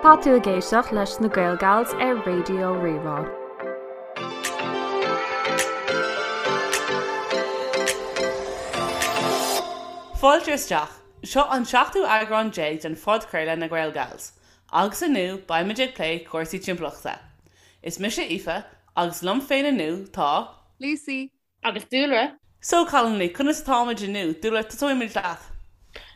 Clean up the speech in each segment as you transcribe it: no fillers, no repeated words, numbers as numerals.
Tá tú ag éisteacht leis na Gaelgals ar Raidió Rí-Rá. Fáilte isteach. Seo an seachtú eagrán déag den phodchraoladh Na Gaelgals. Agus inniu beimid ag plé cúrsaí timpeallachta. Is mise Aoife agus liom féin inniu tá. Lucy. Agus Dúlra. So, cailíní, conas atáimid inniu? Dúlra, tosóidh muid leat.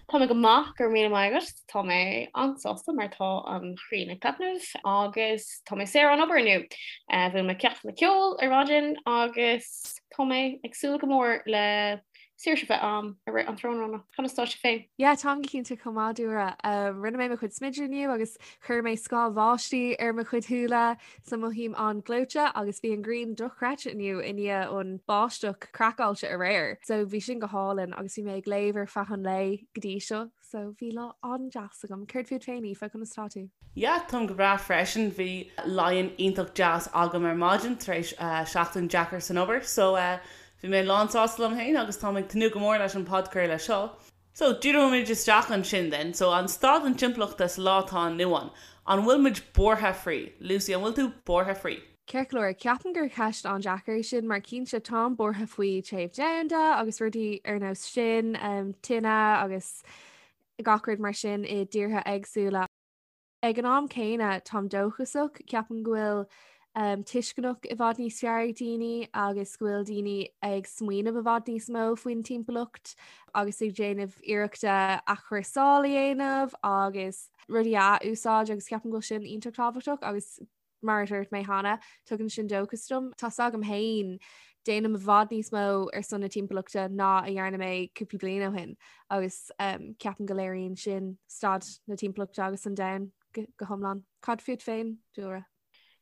Tá mé go maith, go raibh míle maith agat. Tá mé an-sásta mar tá an ghrian ag taitneamh agus tá mé saor ón obair inniu. Bhuail mé ceachtanna ceoil ar maidin agus tá mé ag súil go mór le saoirse a bheith a'm i rith an tráthnóna. Conas tá sibh féin? Yeah, táim go cinnte chomh maith, Dúlra. Rinne mé mo chuid smididh inniu agus chuir mé scáth bháistí ar mo chuid shúile. So mothaím an-ghleoite agus bhí an ghrian dochreidte inniu i ndiaidh an báisteach craiceáilte aréir. So bhí sin go hálainn agus bhí mé ag léamh ar feadh an lae go dtí seo. So bhí lá an-deas agam. Céard fút féin, Aoife, conas tá tú? Yeah, táim go breá freisin. Bhí lie-in iontach deas agam ar maidin tar éis seachtain deacair san obair. So bhí mé lán sásta liom féin agus táim ag tnúth go mór leis an podchraoladh seo. So, díreoimid isteach ansin then. So, an staid an timpeallachta sa lá atá inniu ann, an bhfuil muid buartha faoi? Lucy, an bhfuil tú buartha faoi? Ceart go leor, ceapaim gur ceist an-deacair é sin mar cinnte táim buartha faoi téamh domhanda agus rudaí ar nós sin, tine agus gach rud mar sin i dtíortha éagsúla. Ag an am céanna, táim dóchasach, ceapaim go bhfuil tuisceanach i bhfad níos fearr ag daoine agus go bhfuil daoine ag smaoineamh i bhfad níos mó faoin timpeallacht agus ag déanamh iarrachta athchúrsáil a dhéanamh agus rudaí a athúsáid agus ceapaim go bhfuil sin iontach tábhachtach agus Mar a dúirt mé cheana, tugann sin dóchas dom. Tá's agam féin, déanaim i bhfad níos mó ar son na timpeallachta ná a dhearna mé cúpla bliain ó shin agus ceapaim go léiríonn sin staid na timpeallachta agus an domhain go hiomlán. Cad fút féin, Dúlra?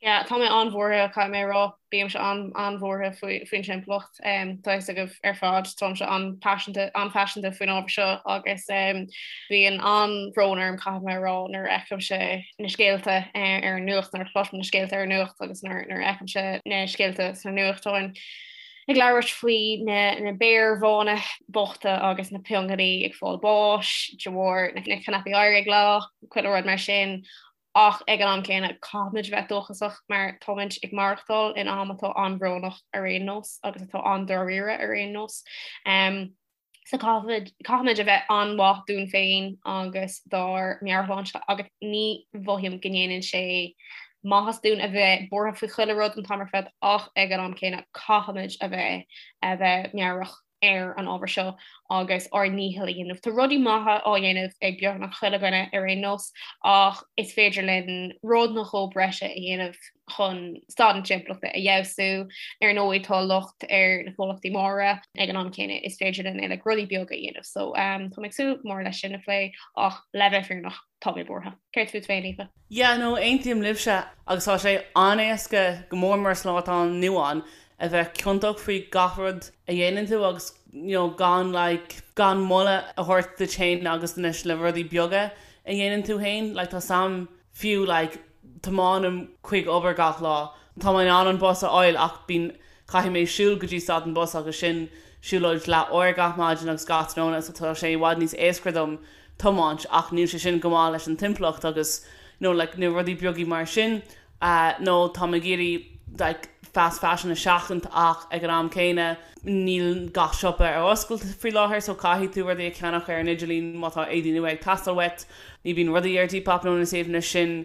Yeah, tá mé an-bhuartha, caithfidh mé a rá. Bímse an-bhuartha faoin timpeallacht. Tá a fhios agaibh ar fad, táimse an-phaiseanta an-phaiseanta faoin ábhar seo agus bíonn an-bhrón orm, caithfidh mé a rá, nuair a fheicimse na scéalta ar an nuacht, nuair a chloisim na scéalta ar an nuacht agus nuair a fheicimse na scéalta sna nuachtáin ag labhairt faoi na béir bhána bochta agus na piongainí ag fáil báis de bharr na cnaipí oighir ag leá, chuile rud mar sin. Ach ag an am céanna, caithfimid a bheith dóchasach mar táimid ag maireachtáil in am atá an-bhrónach ar aon nós agus atá an-dáiríre ar aon nós. So caithfimid, caithfimid a bheith an-mhaith dúinn féin agus dár meabhairshláinte agus ní mhothaím go ndéanann sé maitheas dúinn a bheith buartha faoi chuile rud an t-am ar fad ach ag an am céanna caithfimid a bheith a bheith meabhrach. ar an ábhar seo agus ár ndícheall a dhéanamh. Tá rudaí maithe á dhéanamh ag beagnach chuile dhuine ar aon nós ach is féidir linn rud nó dhó breise a dhéanamh chun staid na timpeallachta a fheabhsú. Ar ndóigh tá locht ar na comhlachtaí móra ag an am céanna is féidir linn uilig rudaí beaga a dhéanamh. So tá mé ag súil go mór leis sin a phlé ach le bheith fírinneach tá mé buartha. Céard fút féin, Aoife? Yeah, no, aontaím libhse agus tá sé an-éasca, go mór mór sa lá atá inniu ann, a bheith ciontach faoi gach rud a dhéanann tú agus you know gan like gan moladh a thabhairt duit féin agus na na rudaí beaga a dhéanann tú féin. Like tá sam fiú like tiomáinim chuig obair gach lá. Tá mé in ann an bus a fháil ach bíonn caithfidh mé siúl go dtí stad an bus agus sin siúlóid leath uair gach maidin agus gach tráthnóna so tá sé i bhfad níos éasca dom tiomáint ach níl sé sin go maith leis an timpeallacht agus you know like na rudaí beaga mar sin nó táim ag iarraidh like fast fashion a sheachaint ach ag an am céanna níl gach siopa ar oscailt faoi láthair so caithfidh tú rudaí a cheannach ar an idirlíon má tá éadaí nua ag teastáil uait. Ní bhíonn rudaí ar Depop nó na suíomhanna sin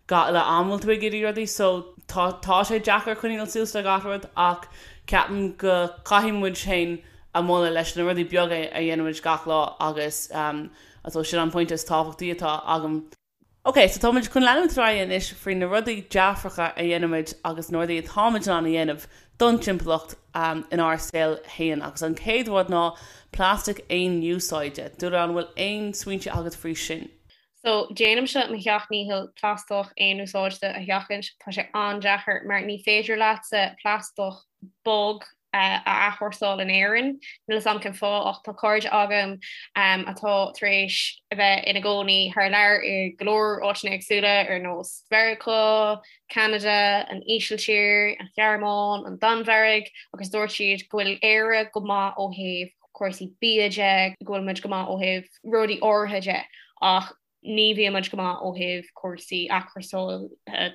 gach uile am bhfuil tú ag iarraidh rudaí so tá tá sé deacair coinneáil suas le gach rud ach ceapaim go caithfidh muid féin a moladh leis na rudaí beaga a dhéanaimid gach lá agus um so sin an pointe is tábhachtaí atá agam. Ok, so táimid chun leanúint ar aghaidh anois faoi na rudaí dearfacha a dhéanaimid agus na rudaí atáimid in ann a dhéanamh don timpeallacht inár saol féin. Agus an chéad rud ná plastic aon úsáide. Dúlra, an bhfuil aon smaointe agat faoi sin? So, déanaimse mo sheacht ndícheall plaisteach aon úsáide a sheachaint. Tá sé an-deacair mar ní féidir leatsa plaisteach bog a athchúrsáil in Éirinn. Níl 'fhios a'm cén fáth ach tá cairde agam atá tar éis a bheith ina gcónaí thar lear i go leor áiteanna éagsúla ar nós Mheiriceá, Ceanada, an Ísiltír, an Ghearmáin, an Danmhairg agus dúirt siad go bhfuil Éire go maith ó thaobh cúrsaí bia de, go bhfuil muid go maith ó thaobh rudaí áirithe de ach. Ní bhíonn muid go maith ó thaobh cúrsaí athchúrsála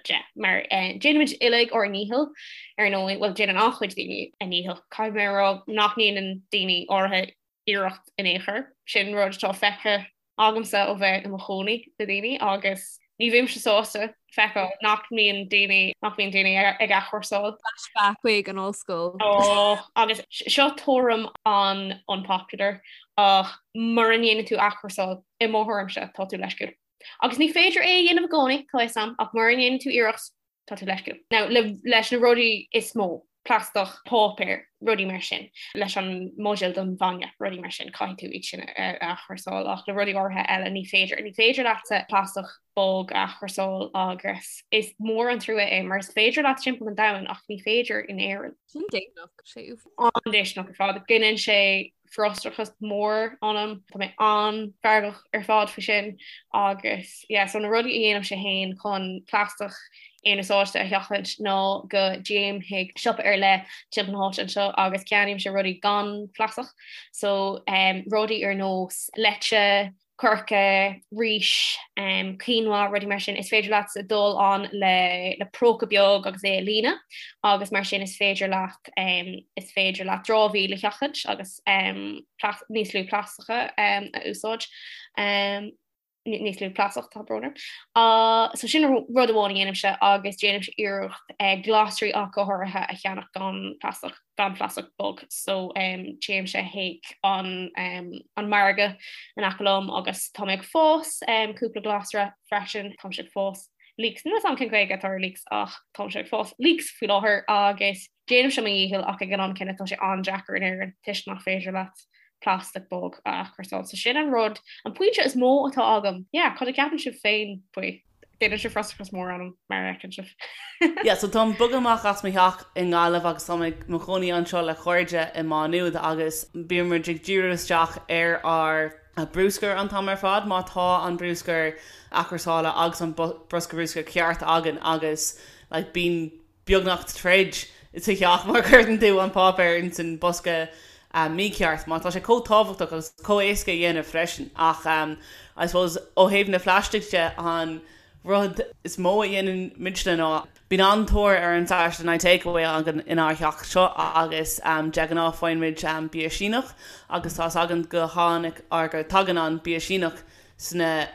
de, mar déanaimid uilig ár ndícheall, ar ndóigh, bhuel, déanann an-chuid daoine a ndícheall. Caithfidh mé a rá nach ndéanann daoine áirithe iarracht in aon chor. Sin rud atá feicthe agamsa ó bheith i mo chónaí le daoine agus ní bhímse sásta feiceáil nach mbíonn daoine nach mbíonn daoine ag athchúrsáil. Flashback chuig an ollscoil. Ó, agus seo tuairim an-unpopular ach mura ndéanann tú athchúrsáil, i mo thuairimse, tá tú leisciúil. Agus ní féidir é a dhéanamh i gcónaí, tá fhios a'm, ach mura ndéanann tú iarracht, tá tú leisciúil. Now, le, leis na rudaí is mó, plaisteach, páipéar, rudaí mar sin, leis an mbuidéal don bhainne, rudaí mar sin, caithfidh tú iad sin a athchúrsáil ach le rudaí áirithe eile ní féidir. Ní féidir leatsa plaisteach bog a athchúrsáil agus is mór an trua é mar is féidir leat timpeall an domhain ach ní féidir in Éirinn. Sin déistineach, sé An-déistineach ar fad. Gineann sé frustrachas mór ionam. Tá mé an-fheargach ar fad faoi sin agus yeah so na rudaí a dhéanaimse féin chun plaisteach aonúsáide a sheachaint ná go dtéim chuig siopa ar leith timpeall na háite anseo agus ceannaímse rudaí gan phlaisteach so um, rudaí ar nós leite, coirce, rís, quinoa, rudaí mar sin, is féidir leat dul ann le le próca beag agus é a líonadh agus mar sin is féidir leat is féidir leat dramhaíl a sheachaint agus níos lú plaisteacha a úsáid. níos lú plaisteach tá brón orm. Uh, so sin rud amháin a dhéanaimse agus déanaimse iarracht uh, glasraí ach go háirithe a cheannach gan plaisteach. gan phlaisteach bog so téimse chuig an an margadh in aice liom agus tá mé ag fás cúpla glasra freisin, táimse ag fás leeks, níl a fhios agam cén Ghaeilge atá ar leeks ach táimse ag fás leeks faoi láthair agus déanaimse mo dhícheall ach ag an am céanna tá sé an-deacair in Éirinn toisc nach féidir leat plastic bog a athchúrsáil. So sin an rud, an pointe is mó atá agam. Yeah, cad a cheapann sibh féin faoi? Déanann sé frustrachas mór ionam mar a fheiceann sibh. Yeah, so táim bogtha amach as mo theach i nGaillimh agus táim i mo chónaí anseo le cairde i Má Nuad agus bíonn muid ag díriú isteach ar ár brúscar an t-am ar fad má tá an brúscar athchúrsála agus an bosca brúscair ceart againn agus like bíonn beagnach troid sa theach má chuireann tú an páipéar ins an bosca mícheart mar tá sé chomh tábhachtach agus chomh éasca a dhéanamh freisin ach I suppose ó thaobh na phlaistigh de an rud is mó a dhéanann muidne ná bíonn an-tóir ar an Saturday Night Takeaway againn inár theach seo agus de ghnáth faigheann muid bia Síneach agus tá's againn go tháinig or go tagann an bia Síneach sna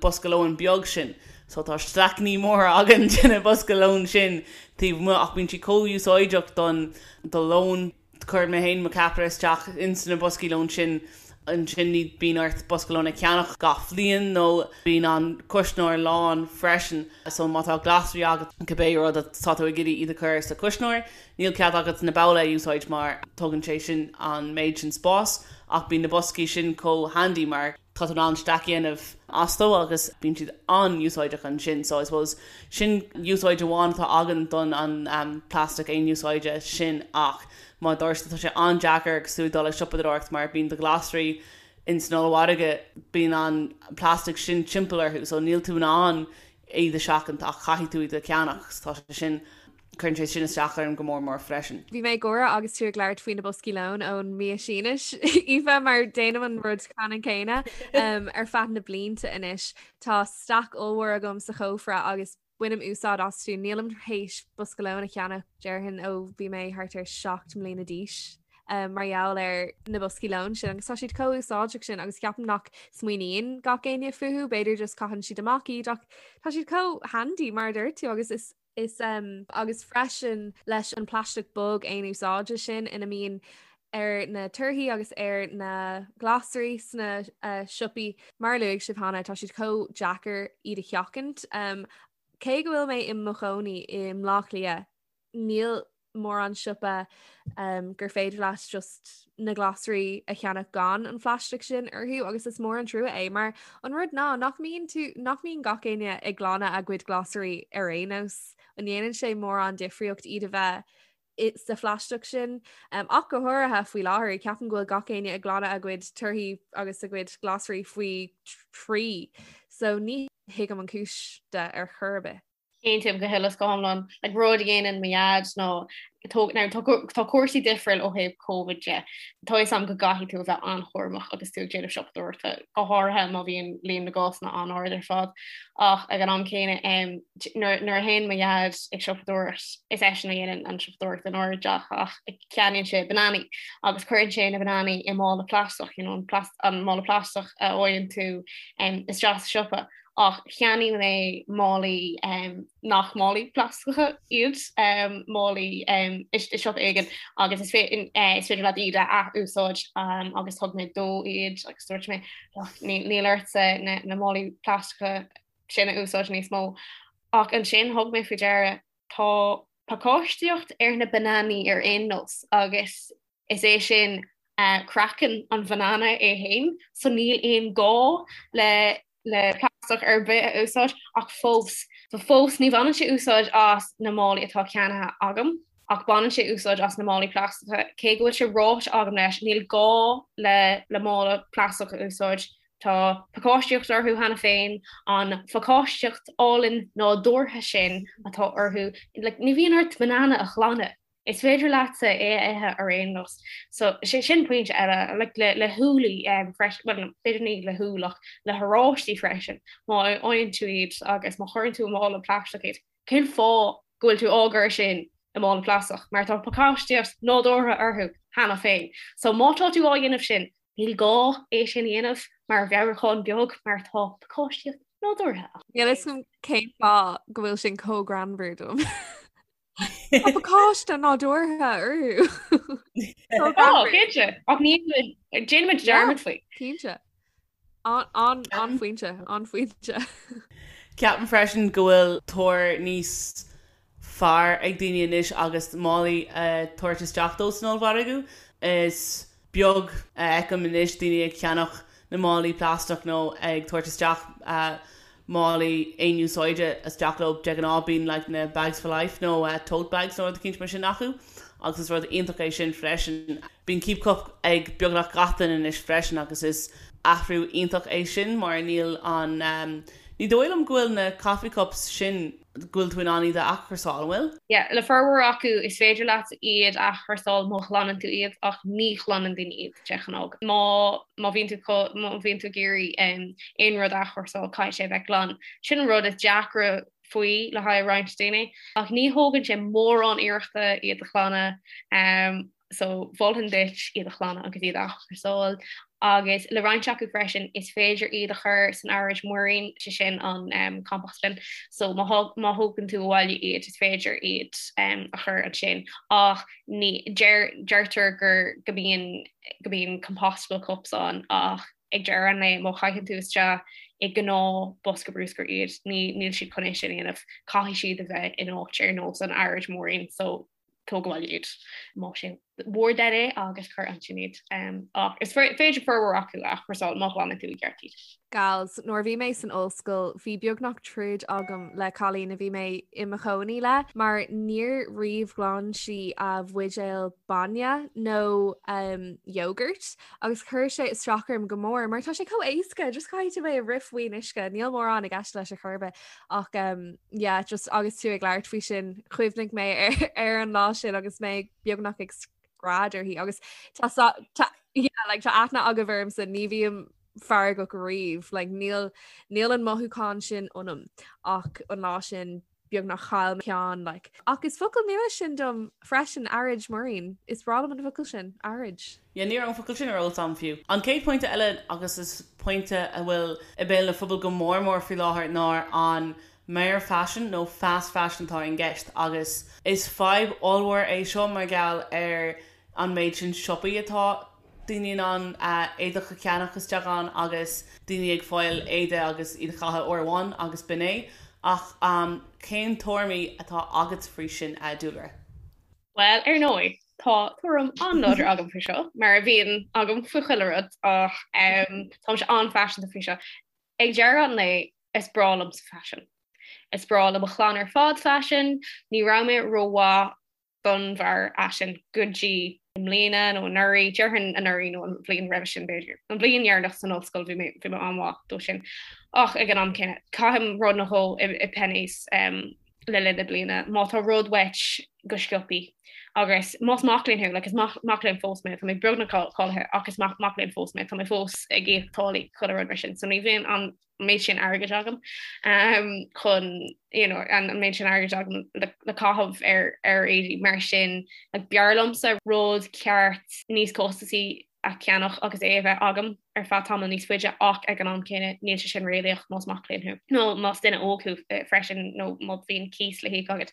bosca lóin beag sin. So tá staiceanna móra againn de na bosca lóin sin taobh amuigh ach bíonn siad chomh úsáideach don do lón. Cuireann mé féin mo cheapaire isteach ins na boscaí lóin sin ansin ní bíonn ort bosca lóin a cheannach gach bhliain nó bíonn an cuisneoir lán freisin so má tá glasraí agat cibé rud atá tú ag iarraidh iad a chur sa chuisneoir níl cead agat na babhla a úsáid mar tógann sé sin an méid sin spáis ach bíonn na boscaí sin chomh handy mar tá tú in ann stack a dhéanamh astu agus bíonn siad an-úsáideach ansin so I suppose sin úsáid amháin atá againn don an plastic aon úsáide sin ach mar a dúirt tá sé an-deacair agus tú ag dul ag siopadóireacht mar bíonn do ghlasraí in san ollmhargadh bíonn an plastic sin timpeall orthu so níl tú in ann iad a sheachaint ach caithfidh tú iad a cheannach so tá sé sin Cuireann sé sin isteach orm go mór mór freisin. Bhí mé ag gáire agus tú ag labhairt faoi na boscaí lóin ón mbia Sínis, Aoife, mar déanaim an rud ceannann céanna ar feadh na blianta anois. Tá stack ollmhór agam sa chófra agus bainim úsáid astu. Nílim tar éis bosca lóin a cheannach, déarfainn, ó bhí mé thart ar 7 mbliana d'aois. mar gheall ar na boscaí lóin sin agus tá siad chomh úsáideach sin agus ceapaim nach smaoiníonn gach éinne fúthu, b'fhéidir just caitheann siad amach iad ach tá siad chomh handy mar a dúirt tú agus is Is agus freisin leis an plaisteach bog aon úsáide sin ina mbíonn ar na torthaí agus ar na glasraí sna siopaí, mar a luaigh sibh cheana, tá siad chomh deacair iad a sheachaint. Cé go bhfuil mé i mo chónaí i mBleá Cliath, níl mórán siopa gur féidir leat just na glasraí a cheannach gan an phlaisteach sin orthu agus is mór an trua é mar an rud ná nach mbíonn tú nach mbíonn gach éinne ag glanadh a gcuid glasraí ar aon nós an ndéanann sé mórán difríocht iad a bheith sa phlaisteach sin um, ach go háirithe faoi láthair ceapaim go bhfuil gach éinne ag glanadh a gcuid torthaí agus a gcuid glasraí faoi thrí so ní thuigim an cúis de ar chor ar bith. Aontaím go huile is go hiomlán. Like rud a dhéanann mo dhaid ná Now tá cúrsaí difriúil ó thaobh Covid de. Tá fhios a'm go gcaithfidh tú a bheith an-chúramach agus tú ag déanamh siopadóireachta, go háirithe má bhíonn líon na gcásanna an-ard ar fad. Ach ag an am céanna, nuair a théann mo dhaid ag siopadóireacht, is eisean a dhéanann an siopadóireacht inár dteach ach ceannaíonn sé bananaí agus cuireann sé na bananaí i mála plaisteach, you know, an mála plaisteach a fhaigheann tú isteach sa siopa. Ach cheannaigh mé málaí nach málaí plaisteacha iad, málaí i siopa éigin agus is féidir leat iad a ath-úsáid agus thug mé dó iad agus dúirt mé níl ortsa na málaí plaisteacha sin a úsáid níos mó. Ach ansin thug mé faoi deara tá pacáistíocht ar na bananaí ar aon nós agus Is é sin craiceann an bhanana é féin, so níl aon gá le le plaisteach ar bith a úsáid ach fós, so fós ní bhaineann sé úsáid as na málaí atá ceannaithe agam ach baineann sé úsáid as na málaí plaisteacha, cé go bhfuil sé ráite agam leis níl gá le le mála plaisteach a úsáid, tá pacáistíocht orthu cheana féin, an phacáistíocht álainn nádúrtha sin atá orthu, like ní bhíonn ort banana a ghlanadh. Is féidir leatsa é a ithe ar aon nós. So, sé sin pointe eile, like le le húllaí um, freisin, well, b'fhéidir ní le húll ach le horáistí freisin, má fhaigheann tú iad agus má chuireann tú i mála plaisteach iad, cén fáth go bhfuil tú á gcur sin i mála plaisteach? Mar tá pacáistíocht nádúrtha orthu cheana féin. So má tá tú á dhéanamh sin, níl gá é sin a dhéanamh mar mheabhrúchán beag mar tá pacáistíocht nádúrtha ann. Níl a fhios agam cén fáth go bhfuil sin chomh greannmhar dom. Tá pacáiste nádúrtha orthu. Ó, cinnte. Ach ní déanaimid dearmad faoi. Cinnte. An-phointe, an-phointe. Ceapaim freisin go bhfuil tóir níos fearr ag daoine anois agus málaí a tabhairt isteach dóibh san ollmhargadh. Is beag a fheicim anois daoine ag ceannach na málaí plaisteach nó ag tabhairt isteach málaí aon úsáide isteach leo. De ghnáth bíonn like na bags for life nó tote bags nó rud eicínt mar sin acu agus is rud iontach é sin freisin. Bíonn keep cup ag beagnach gach duine anois freisin agus is athrú iontach é sin mar níl an, ní dóigh liom go bhfuil na coffee cups sin, go bhfuil tú in ann iad a athchúrsáil, an bhfuil? Yeah, le formhór acu is féidir leat iad a athchúrsáil má ghlanann tú iad ach ní ghlanann daoine iad de ghnáth. Má má bhíonn tú má bhíonn tú ag iarraidh aon rud a athchúrsáil caithfidh sé a bheith glan. Sin an rud is deacra faoi le haghaidh roinnt daoine ach ní thógann sé mórán iarrachta iad a ghlanadh. So mholfainn duit iad a ghlanadh agus iad a athchúrsáil. Agus le roinnt acu freisin is féidir iad a chur san araid muirín, sé sin an compost bin. So má thógann tú abhaile iad is féidir iad a chur ansin. Ach ní, deir, deirtear gur, go mbíonn, go mbíonn compostable cups ann ach ag deireadh an lae má chaitheann tú isteach i ngnáth bosca bruscair iad, ní, níl siad chun é sin a dhéanamh. Caithfidh siad a bheith in áit ar nós an araid muirín. So tóg abhaile iad más é bhur dtoil é agus cuir ansin iad. Ach is féidir formhór acu a athchúrsáil má ghlanann tú i gceart iad. Gals, nuair a bhí mé san ollscoil bhí beagnach troid agam le cailín a bhí mé i mo chónaí le mar níor riamh ghlan sí a bhuidéal bainne nó um, yogurt agus chuir sé isteach orm go mór mar tá sé chomh éasca just caithfidh tú é a rith faoin uisce níl mórán i gceist leis ar chor ar bith ach um, yeah, just agus tú ag labhairt faoi sin chuimhnigh mé ar, ar an lá sin agus mé beagnach ag scread uirthi agus tá tá yeah, like, tá aithne agaibh ormsa ní bhím feargach riamh like, níl níl an mothúchán sin ionam ach an lá sin beagnach chaill mé ceann like. Ach is focal nua sin dom freisin araid muirín. Is breá liom an focal sin, araid. Yeah, ní raibh an focal sin ar eolas agam fiú. An chéad pointe eile agus is pointe a bhfuil i mbéal na phobail go mór mór faoi láthair ná an mearfhaisean nó fast fashion atá i gceist agus is fadhb ollmhór é seo mar gheall ar an méid sin siopaí atá daoine in ann éadach a cheannach isteach ann agus daoine ag fáil éide agus iad a chaitheamh uair amháin agus b'in é. Ach cén tuairimí atá agat faoi sin, a Dúlra? Bhuel, ar ndóigh, tá tuairim an-láidir agam faoi seo, mar a bhíonn agam faoi chuile rud, ach táimse an-phaiseanta faoi seo. Ag deireadh an lae, is breá liomsa faisean. Is breá le mo chlann ar fad faisean. Ní raibh mé rómhaith don bharrfhaisean go dtí i mbliana nó anuraidh, déarfainn anuraidh nó an bhliain roimhe sin b'fhéidir. An bhliain dheireanach san ollscoil bhí mé bhí mé an-mhaith dó sin. Ach ag an am céanna, caithim rud nó dhó i Penneys le linn na bliana. Má tá rud uait go sciobtha. Agus más mac léinn thú, like is mac léinn fós mé, tá mé beagnach cáilithe ach is mac mac léinn fós mé, tá mé fós ag íoc táillí chuile rud mar sin, so ní bhíonn an méid sin airgid agam um, chun you know, an méid sin airgid agam le, le caitheamh ar ar éadaí mar sin like, b'fhearr liomsa rud ceart níos costasaí a cheannach agus é a bheith agam ar feadh tamall níos faide ach ag an am céanna níl sé sin réalaíoch más mac léinn thú nó más duine óg thú freisin nó má bhíonn cíos le híoc agat.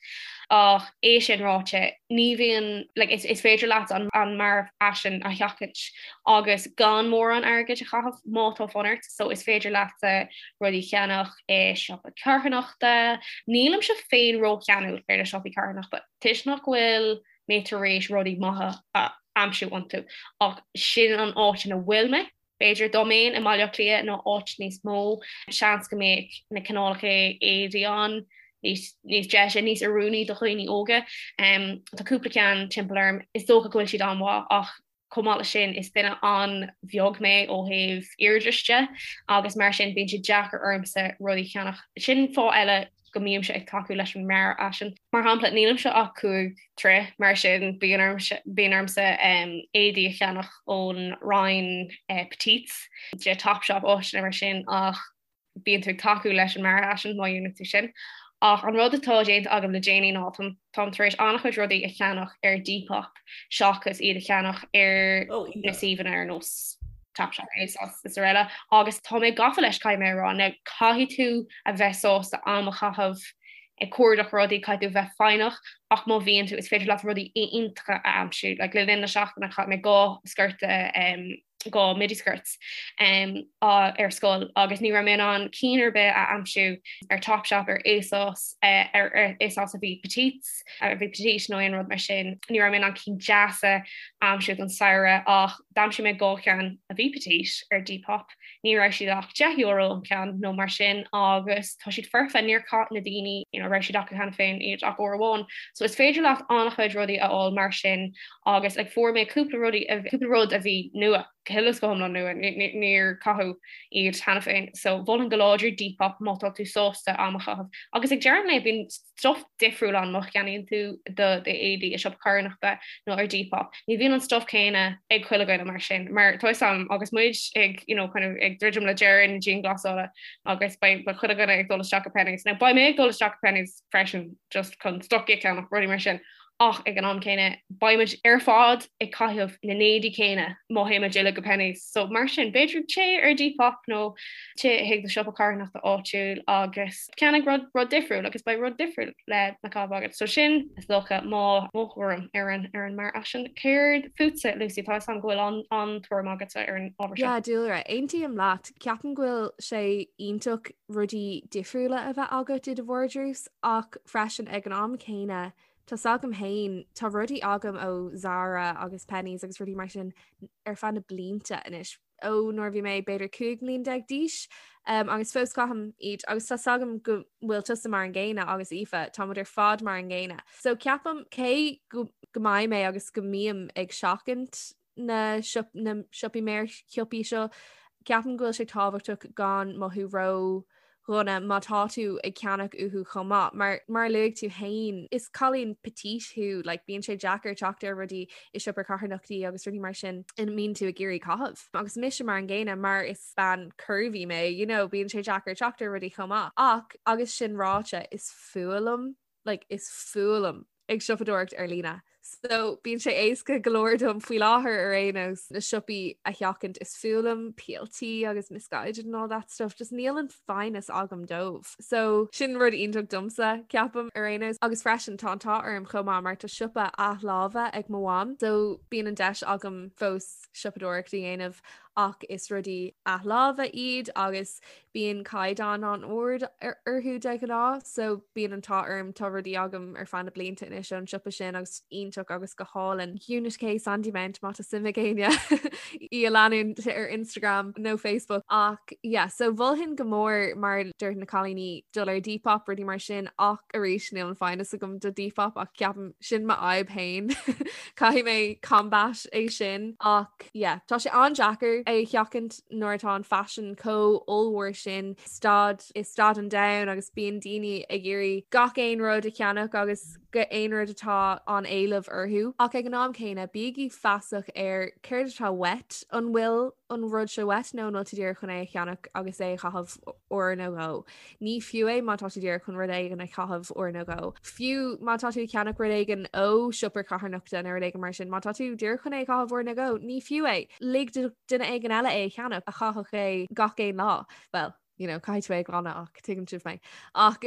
Ach é sin ráite, ní bhíonn, like, is, is féidir leat an, an mearfhaisean a sheachaint agus gan mórán airgid a chaitheamh má tá fonn ort, so is féidir leat rudaí a cheannach i siopa carthanachta. Nílimse féin rócheanúil ar na siopaí carthanachta toisc nach bhfuil mé tar éis rudaí maithe a aimsiú iontu, ach sin an áit ina bhfuil mé. B'fhéidir dá mbeinn i mBaile Átha Cliath nó áit níos mó, seans go mbeadh na cineálacha éadaí ann níos níos deise, níos oiriúnaí do dhaoine óga. Tá cúpla ceann timpeall orm, is dócha go bhfuil siad an-mhaith ach chomh maith leis sin is duine an-bheag mé ó thaobh airde de agus mar sin bíonn sé deacair ormsa rudaí a cheannach. Sin fáth eile go mbímse ag tacú leis an mearfhaisean. Mar shampla, nílimse ach 5 troigh, mar sin bíonn ormsa éadaí a cheannach ón roinn petites de Topshop, áiteanna mar sin, ach bíonn tú ag tacú leis an mearfhaisean má dhéanann tú sin. Ach an rud atá déanta agam le déanaí ná táim tar éis an-chuid rudaí a cheannach ar Depop seachas iad a cheannach ar na suíomhanna ar nós Topshop, ASOS is araile agus tá mé gafa leis caithfidh mé a rá. Now caithfidh tú a bheith sásta am a chaitheamh ag cuardach rudaí, caithfidh tú bheith foighneach ach má bhíonn tú is féidir leat rudaí iontacha a aimsiú. Like le linn na seachtaine chaith mé 2 sciorta um, 2 midi skirts um, ar scoil agus ní raibh mé in ann cinn ar bith a aimsiú ar Topshop, ar ASOS, uh, ar, ar ASOS a bhí petites, a bhí petite nó aon rud mar sin. Ní raibh mé in ann cinn deasa a aimsiú don samhradh ach D'aimsigh mé 2 cheann a bhí petite ar Depop, ní raibh siad ach €10 an ceann nó mar sin agus tá siad foirfe, níor chaith na daoine you know raibh siad acu cheana féin iad ach uair amháin. So is féidir leat an-chuid rudaí a fháil mar sin agus like fuair mé cúpla rudaí cúpla rud a bhí nua, go huile is go hiomlán nua, níor caitheadh iad cheana féin. So mholfainn go láidir Depop má tá tú sásta am a chaitheamh. Agus ag deireadh an lae bíonn stuff difriúil ann má cheannaíonn tú do d'éadaí i siopa carthanachta nó ar Depop. Ní bhíonn an stuff céanna ag chuile dhuine mar sin, mar tá 'fhios a'm agus muid ag you know, kind of ag druidim le deireadh na dianghlasála agus beidh chuile dhuine ag dul isteach go Penneys. Now beidh mé ag dul isteach go Penneys freisin just chun stocaí a cheannach, rudaí mar sin. Ach ag an am céanna, beidh muid ar fad ag caitheamh na n-éadaí céanna má théann muid uilig go Penneys. So mar sin, b'fhéidir téigh ar Depop nó téigh chuig do siopa carthanachta áitiúil agus ceannaigh rud rud difriúil agus beidh rud difriúil le le caitheamh agat. So sin is dócha mo mo thuairim ar an ar an mearfhaisean. Céard fútsa, Lucy? Tá 'fhios a'm go bhfuil an an-tuairim agatsa ar an ábhar seo. Yeah, dúlra, aontaím leat. Ceapaim go bhfuil sé iontach rudaí difriúla a bheith agat i do vardrús ach freisin ag an am céanna tá 's agam féin, tá rudaí agam ó Zara agus Penneys agus rudaí mar sin ar feadh na blianta anois. ó nuair a bhí mé b'fhéidir 15 mbliain d'aois um, agus fós caithim iad agus tá 's agam go bhfuil tusa mar an gcéanna agus Aoife tá muid ar fad mar an gcéanna. So ceapaim cé go, go mbeidh mé agus go mbím ag seachaint na, siop, na siopaí méarshiopaí seo, ceapaim go bhfuil sé tábhachtach gan mothú ró dhona má tá tú ag ceannach uathu chomh maith. Mar mar a luaigh tú féin, is cailín petite thú, like bíonn sé deacair teacht ar rudaí i siopa carthanachtaí agus rudaí mar sin ina mbíonn tú ag iarraidh caitheamh. Agus mise mar an gcéanna, mar is bean curvy mé, you know, bíonn sé deacair teacht ar rudaí chomh maith. Ach agus sin ráite, is fuath liom, like is fuath liom ag siopadóireacht ar líne. So bíonn sé éasca go leor dom faoi láthair ar aon nós na siopaí a sheachaint is fuath liom PLT agus Missguided and all that stuff, just níl an foighneas agam dóibh. So sin rud iontach domsa, ceapaim ar aon nós. Agus freisin tá an t-ádh orm chomh maith mar tá siopa athláimhe ag mo mham, so bíonn an deis agam fós siopadóireacht a dhéanamh ach is rudaí athláimhe iad agus bíonn caighdeán an-ard orthu de ghnáth so bíonn an t-ádh orm tá rudaí agam ar feadh na blianta anois ón siopa sin agus iontach agus go hálainn. Unit K Sandymount má tá suim ag éinne í a leanúint ar Instagram nó Facebook ach yeah so mholfainn go mór mar a dúirt na cailíní dul ar Depop rudaí mar sin ach arís níl an foighneas agam do Depop ach ceapaim sin m'fhadhb féin caithfidh mé combat é sin ach yeah tá sé an-deacair é a sheachaint nuair atá an faisean chomh ollmhór sin staid i staid an domhain agus bíonn daoine ag iarraidh gach aon rud a cheannach agus gach aon rud atá an éileamh. orthu. Ach ag an am céanna, bígí feasach ar céard atá uait, an bhfuil an rud seo uait nó an bhfuil tú díreach chun é a cheannach agus é a chaitheamh uair nó dhó. Ní fiú é má tá tú díreach chun rud éigin a chaitheamh uair nó dhó. Fiú má tá tú ag ceannach rud éigin ó siopa carthanachta nó rud éigin mar sin, má tá tú díreach chun é a chaitheamh uair nó dhó, ní fiú é. Lig do duine éigin eile é a cheannach a chaithfeadh é gach aon lá. Well, you know, caithfidh tú é a ghlanadh ach tuigeann sibh mé. Ach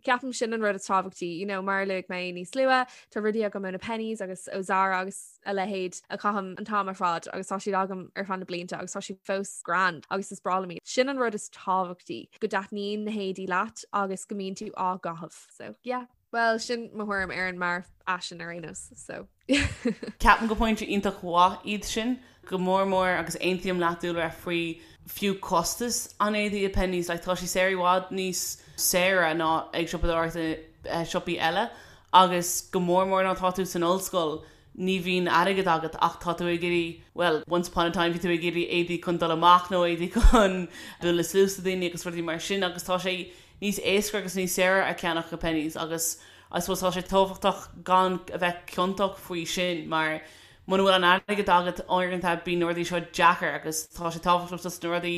ceapaim sin an rud is tábhachtaí, you know, mar a luaigh mé níos luaithe, tá rudaí agam ó na Penneys agus ó Zara agus a leithéid a chaithim an t-am ar fad agus tá siad agam ar feadh na blianta agus tá siad fós grand agus is breá liom iad. Sin an rud is tábhachtaí, go dtaitníonn na héadaí leat agus go mbíonn tú á gcaitheamh. So yeah. Well sin mo thuairim ar an mearfhaisean ar aon nós. So. Ceapaim gur pointe iontach mhaith iad sin, go mór mór agus aontaím leat Dúlra faoi fiú costas an éadaí i Penneys, like tá sé saor i bhfad níos saoire ná ag siopadóireacht i siopaí eile agus go mór mór nuair atá tú san ollscoil ní bhíonn airgead agat ach tá tú ag iarraidh, bhuel, once upon a time bhí tú ag iarraidh éadaí chun dul amach nó éadaí chun bualadh suas le daoine agus rudaí mar sin agus tá sé níos éasca agus níos saoire a ceannach i Penneys agus I suppose tá sé tábhachtach gan a bheith ciontach faoi sin mar muna bhfuil an airgead agat uaireanta bíonn na rudaí seo deacair agus tá sé tábhachtach just na rudaí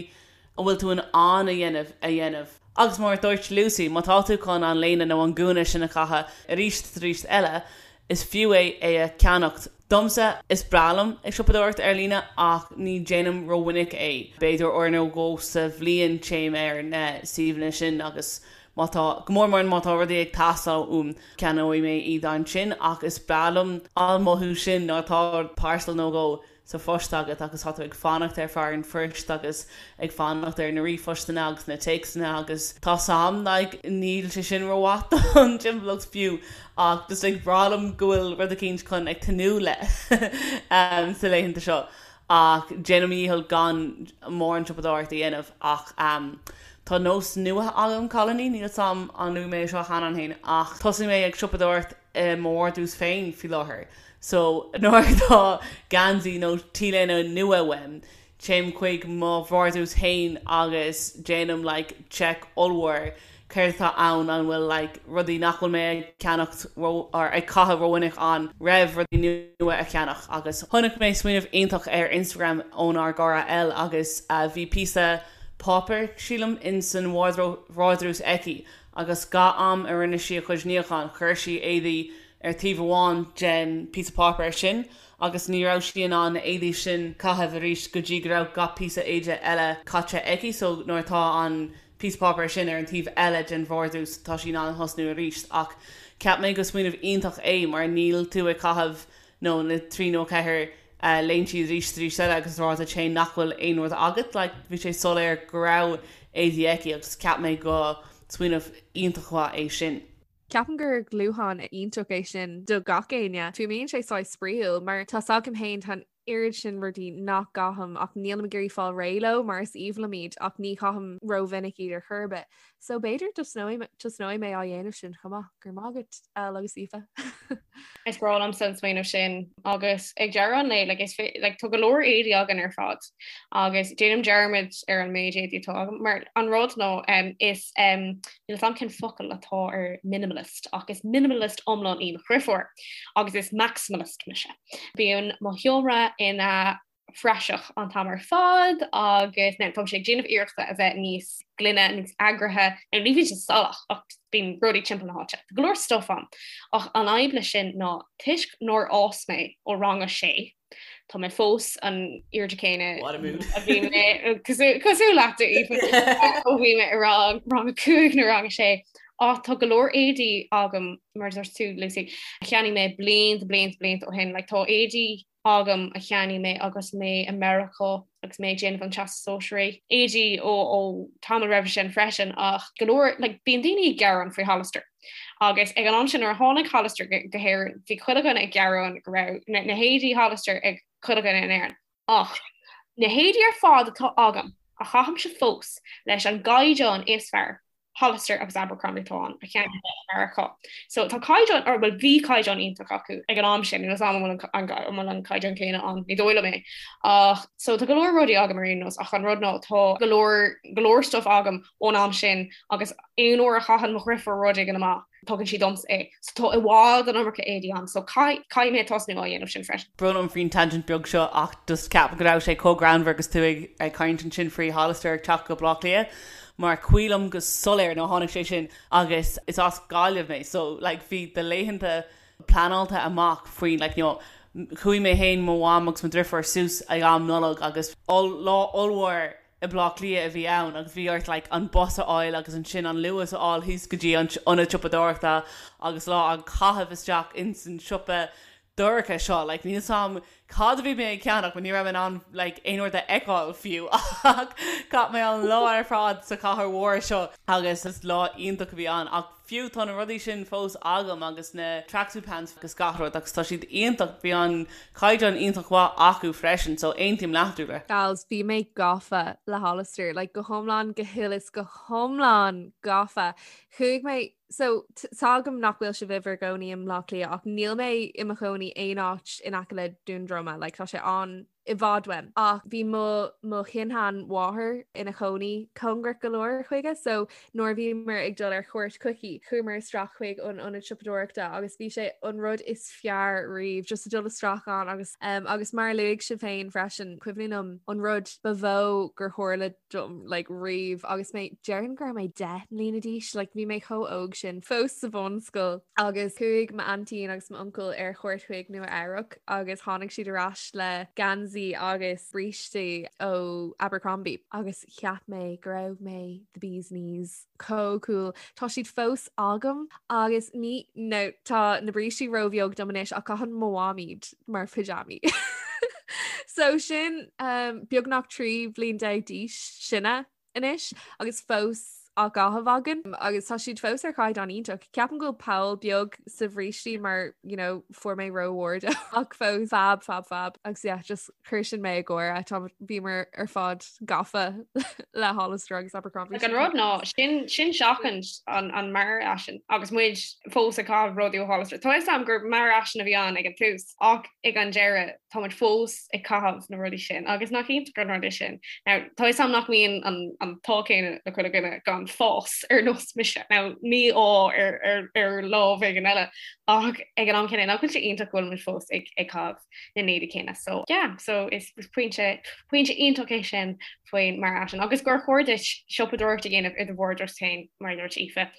a bhfuil tú in ann a dhéanamh a dhéanamh. Agus mar a dúirt Lucy, má tá tú chun an léine nó an gúna sin a chaitheamh arís is arís eile, is fiú é é a cheannacht. Domsa, is breá liom ag siopadóireacht ar líne ach ní déanaim rómhinic é. B'fhéidir uair nó dhó sa bhliain téim ar na suíomhanna sin agus má tá, go mór mór má tá rudaí ag teastáil uaim, ceannóidh mé iad ansin ach is breá liom an mothú sin nuair atá parcel nó dhó sa phost agat agus tá tú ag fanacht ar fear an phoist agus ag fanacht ar na ríomhphostanna agus na téacsanna agus tá sam like níl sé sin rómhaith don timpeallacht fiú ach just like breá liom go bhfuil rud eicínt chun ag tnúth le sa laethanta seo ach déanaim mo dhícheall gan mórán siopadóireacht a dhéanamh ach tá nós nua agam cailíní níl 'fhios a'm an luaigh mé seo cheana féin ach thosaigh mé ag siopadóireacht i mo vardrús féin faoi láthair. So, nuair atá geansaí nó t-léine nua uaim, téim chuig mo vardrús féin agus déanaim like check ollmhór céard atá ann, an bhfuil like rudaí nach bhfuil mé ag ceannacht ró or ag caitheamh rómhinic ann roimh rudaí nua a cheannach. Agus chonaic mé smaoineamh iontach ar Instagram ónár gcara Elle agus bhí píosa páipéir, sílim, in san vardrús aici agus gach am a rinne sí a cuid níocháin chuir sí éadaí ar taobh amháin den píosa páipéir sin agus ní raibh sí in ann na éadaí sin caitheamh arís go dtí go raibh gach píosa éide eile caite aici so nuair atá an píosa páipéir sin ar an taobh eile den vardrús tá sí in ann thosnú arís ach cheap mé go smaoineamh iontach é mar níl tú ag caitheamh nó na 3 nó 4 léinte arís arís eile agus rá duit féin nach bhfuil aon rud agat like bhí sé soiléir go raibh éadaí aici agus cheap mé go smaoineamh iontach mhaith é sin. Ceapaim gur dúshlán iontach é sin do gach éinne. Fuaimníonn sé saghas spraíúil mar tá 's agam féin tá an oiread sin rudaí nach gcaithim ach nílim ag iarraidh fáil réidh leo mar is aoibhinn liom iad ach ní chaithim rómhinic iad ar chor ar bith. So b'fhéidir tosnóidh mé á dhéanamh sin chomh maith. Go raibh maith agat Elle agus Aoife. Is breá liomsa an smaoineamh sin agus ag deireadh an lae like, is like, tá go leor éadaí againn ar fad agus déanaim dearmad ar an méid éadaí atá agam mar an rud ná um, is um, níl 'fhios a'm cén focal atá ar minimalist ach is minimalist iomlán í mo dheirfiúr agus is maximalist mise. Bíonn mo sheomra ina phraiseach an t-am ar fad agus now táimse ag déanamh iarrachta a bheith níos glaine, níos eagraithe, now ní bhíonn sé salach ach bíonn rudaí timpeall na háite. Tá go leor stuff ann. Ach an fhadhb leis sin ná toisc nár fhás mé ó rang a sé, tá mé fós an airde céanna What a mood. a bhí mé cosúil leat Aoife ó bhí mé i rang rang a cúig nó rang a sé. Ach tá go leor éadaí agam mar a dúirt tú Lucy, a cheannaigh mé blianta blianta blianta ó shin, like tá éadaí agam a cheannaigh mé agus mé i Meiriceá agus mé ag déanamh an Teastas Sóisearaigh, éadaí ó ó tamall roimhe sin freisin ach go leor like bíonn daoine ag gearán faoi Hollister agus ag an am sin nuair a tháinig Hollister go go hÉirinn bhí chuile dhuine ag gearán go raibh na na héadaí Hollister ag chuile dhuine in Éirinn ach na héadaí ar fad atá agam a chaithimse fós leis an gcaighdeán is fearr. Hollister agus Abercrombie atá ann a cheannaigh i Meiriceá. So tá caighdeán, or bhuel bhí caighdeán iontach acu ag an am sin, níl 'fhios a'm an bhfuil an bhfuil an caighdeán céanna ann, ní dóigh liom é. Ach so tá go leor rudaí agam ar aon nós ach an rud ná tá go leor go leor stuff agam ón am sin agus aon uair a chaitheann mo dheirfiúr rud éigin amach, tugann sí domsa é. So tá i bhfad an iomarca éadaí agam so caithfidh mé tosnú á dhéanamh sin freisin. Brón orm faoin tangent beag seo ach just ceapaim go raibh sé chomh greannmhar agus tú ag caint ansin faoi Hollister ag teacht go Baile Átha Cliath mar cuimhin liom go soiléir nuair a tháinig sé sin agus is as Gaillimh mé so like bhí do laethanta pleanáilte amach faoin like you know chuaigh mé féin, mo mham agus mo dhriofúr suas ag am Nollag agus lá ollmhór i mBleá Cliath a bhí ann agus bhí ort like an bus a fháil agus ansin an Luas a fháil thíos go dtí an ionad siopadóireachta agus lá á caitheamh isteach ins an siopa dorcha seo like níl 's a'm cad a bhí mé ag ceannach mar ní raibh mé in ann like aon rud a fheiceáil fiú ach chaith mé an lá ar fad sa chathair mhór seo agus is lá iontach a bhí ann ach Fiú tá na rudaí sin fós agam agus na tracksuit pants agus gach rud agus tá siad iontach, bhí an caighdeán iontach mhaith acu freisin so aontaím leat Dúlra. Gals, bhí mé gafa le Hollister, like go hiomlán, go huile is go hiomlán gafa. Chuaigh mé, so tá agam nach bhfuil sibh i bhur gcónaí i mBleá Cliath ach níl mé i mo chónaí aon áit in aice le Dún Droma, like tá sé an i bhfad uaim. Ach bhí mo mo shin-sheanmháthair ina chónaí cóngarach go leor chuige so nuair a bhíomar ag dul ar chuairt chuici, chuamar isteach chuig an ionad siopadóireachta agus bhí sé an rud is fearr riamh just a dul isteach ann agus um, agus mar a luaigh sibh féin freisin, cuimhin liom an rud ba mhó gur tharla dom like riamh agus mé déarfainn go raibh mé 10 mbliana d'aois like bhí mé chomh óg sin fós sa bhunscoil agus chuaigh m'aintín agus m'uncail ar chuairt chuig Nua Eabhrac agus tháinig siad ar ais le geansaí agus brístí ó Abercrombie agus cheap mé go raibh mé the bee's knees chomh cool. Tá siad fós agam agus ní no tá na brístí róbheag dom anois ach caitheann mo mham iad mar pajamaí. So sin um, beagnach 13 bhliain d'aois sinne anois agus fós á gcaitheamh againn agus tá siad fós ar chaighdeán iontach. Ceapaim go bhfuil poll beag sa bhrístí mar you know, fuair mé rómhór dó ach fós fab fab fab agus yeah, just Chuir sin mé ag gáire, tá bhíomar ar fad gafa le Hollister agus Abercrombie. Like an rud ná sin sin seachaint an an mearfhaisean agus muid fós ag caitheamh rudaí ó Hollister. Tá fhios a'm gur mearfhaisean a bhí ann ag an tús ach ag an deireadh tá muid fós ag caitheamh na rudaí sin agus nach iontach an rud é sin. Now tá fhios a'm nach mbíonn an an t-ádh céanna le chuile dhuine gan fás ar nós mise. Now mí-ádh ar ar ar lámh éigin eile ach ag an am céanna nach bhfuil sé iontach go bhfuil muid fós ag ag caitheamh na n-éadaí céanna. So yeah, so is pointe pointe iontach é sin faoin mearfhaisean agus gur chóir duit siopadóireacht a dhéanamh i do bhardros féin mar a dúirt Aoife.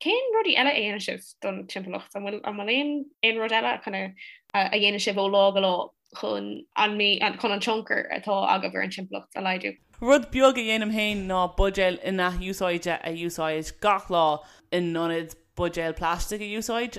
Cén rudaí eile a dhéanann sibh don timpeallacht? An bhfuil an bhfuil aon aon rud eile kind of a dhéanann sibh ó lá go lá chun an chun an tionchar atá agaibh ar an timpeallacht a laghdú? Rud beag a dhéanaim féin ná buidéal in-athúsáidte a úsáid gach lá in ionad buidéal plaistigh a úsáid.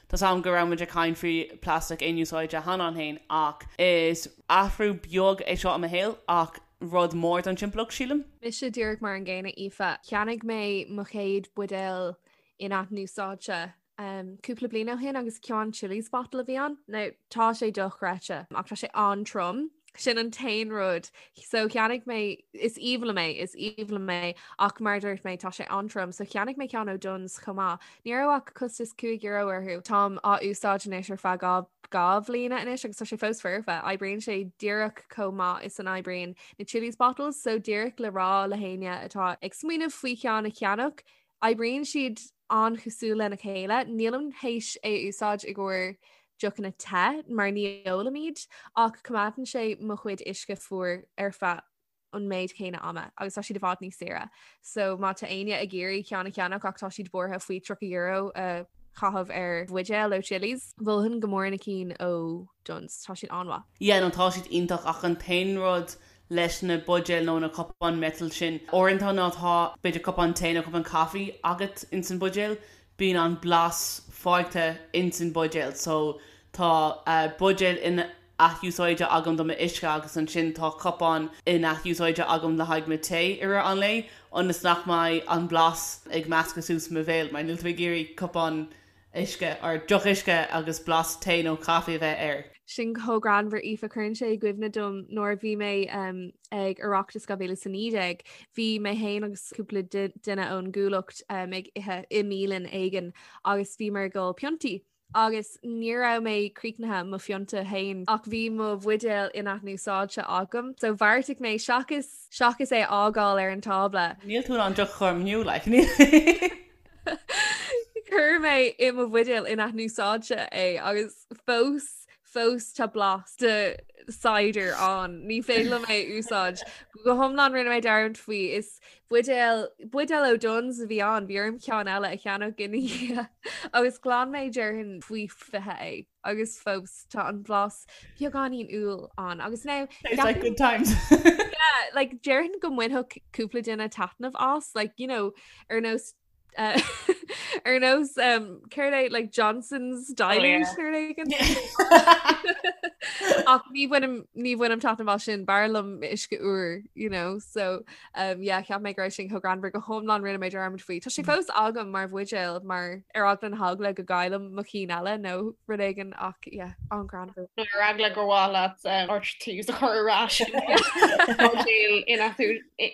Tá's a'm go raibh muid ag caint faoi plastic aon úsáide cheana féin ach is athrú beag é seo i mo shaol ach rud mór don timpeallacht, sílim. Mise díreach mar an gcéanna, Aoife. Cheannaigh mé mo chéad buidéal in-athúsáidte cúpla bliain ó shin agus ceann Chilly's bottle a bhí ann. Now tá sé dochreidte ach tá sé an-trom. Sin an t-aon rud. So cheannaigh mé, is aoibhinn liom é, is aoibhinn liom é, ach mar a dúirt mé, tá sé an-trom. So cheannaigh mé ceann ó Dunnes chomh maith. Ní raibh ach costas €5 orthu. Táim á úsáid anois ar feadh 2 bhliana anois agus tá sé fós foirfe. Oibríonn sé díreach chomh maith is an oibríonn na Chilly's bottles. So díreach le rá le héinne atá ag smaoineamh faoi cheann a cheannach, Oibríonn siad an-chosúil lena chéile. Nílim théis é a úsáid i gcomhair deochanna te mar ní ólaim iad ach coimeádann sé mo chuid uisce fuar ar feadh an méid céanna ama agus tá siad i bhfad níos saoire. So má tá éinne ag iarraidh ceann a cheannach ach tá siad buartha faoi €30 a chaitheamh ar bhuidéal ó Chilly's, mholfainn go mór na cinn ó Dunnes. Tá siad an-mhaith. Yeah no tá siad iontach ach an t-aon rud leis na buidéil nó na cupáin miotail sin. Uaireanta má tá b'fhéidir cupán tae nó cupán caife agat ins an buidéal, bíonn an blas fágtha ins an buidéal. So tá buidéal in-athúsáidte agam do m'uisce agus ansin tá cupán in-athúsáidte agam le haghaidh mo tae i rith an lae ionas nach mbeidh an blas ag meascadh suas i mo bhéal mar níl tú ag iarraidh cupán uisce or deoch uisce agus blas tae nó caife a bheith air. Sin chomh greannmhar Aoife cuireann sé i gcuimhne dom nuair a bhí mé um, ag Oireachtas 2019 bhí mé féin agus cúpla duine ón gcuallacht um, ag ithe i mbialann éigin agus bhíomar ag ól piontaí. Agus ní raibh mé críochnaithe mo phionta féin ach bhí mo bhuidéal in-athúsáidte agam, so bheartaigh mé seachas seachas é a fhágáil ar an tábla. Níl tú in ann deoch a chur amú, like. Chuir mé i mo bhuidéal in-athúsáidte é agus fós fós tá blas de cider ann. Ní féidir liom é a úsáid. Go hiomlán rinne mé dearmad faoi. Is buidéal buidéal ó Dunnes a bhí ann, bhí orm ceann eile a cheannach ina dhiaidh agus ghlan mé déarfainn faoi 20 é agus fós tá an blas beagáinín úll ann agus now It's like good times. yeah, like déarfainn go mbainfeadh cúpla duine taitneamh as like you know ar nós uh, ar nós um, céard é like Johnson's Dilute oh, yeah. Ach ní bhainim ní bhainim taitneamh as sin b'fhearr liom uisce úr you know so um, yeah, cheap mé go raibh sin chomh greannmhar go hiomlán rinne mé dearmad faoi. Tá sé fós agam mar bhuidéal mar ar eagla na heagla go gcaillim mo chinn eile nó rud éigin ach yeah, an-ghreannmhar. Nó ar eagla gur mhaith leat RTs a chur ar ais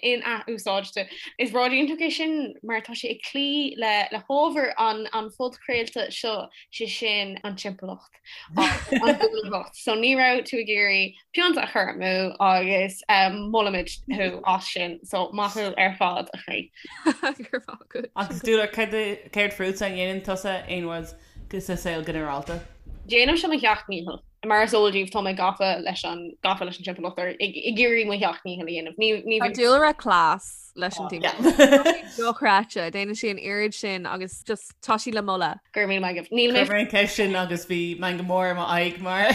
in-athúsáidte. Is rud iontach é sin mar tá sé ag cloí le le hábhar an an phodchraolta seo, sé sin an timpeallacht agus an inbhuanaitheacht. So ní raibh tú ag iarraidh pionta a chur amú agus molaimid thú as sin. So maith thú ar fad a chroí. Go raibh maith agat. Agus Dúlra, céard fútsa, an ndéanann tusa aon rud sa saol ginearálta? Déanaimse mo sheacht ndícheall. Mar is eol daoibh, tá mé gafa leis an gafa leis an timpeallacht ar ag iarraidh mo sheacht ndícheall a dhéanamh. Ní ní Tá Dúlra class leis an timpeallacht. Dochreidte, déanann sí an oiread sin agus just tá sí le moladh. Go raibh míle maith agaibh. Níl mé. Chuir mé an ceist sin agus bhí meangadh mór i m'aghaidh mar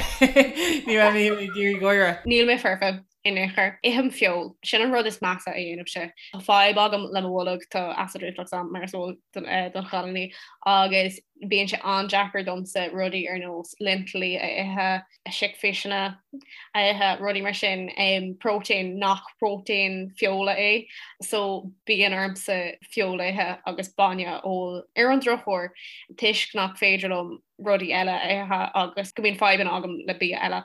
ní raibh mé ag iarraidh gáire. Níl mé foirfe. in aon chor. Ithim feoil. Sin an rud is measa a dhéanaimse. Tá fadhb agam le mo bholg, tá acid reflux agam mar is eol don chailíní agus bíonn sé an-deacair domsa rudaí ar nós lintilí a ithe, chickpeasanna a ithe, rudaí mar sin, próitéin nach próitéin feola é. So bíonn ormsa feoil a ithe agus bainne a ól. Ar an drochuair, toisc nach féidir liom rudaí eile a ithe agus go mbíonn fadhbanna agam le bia eile.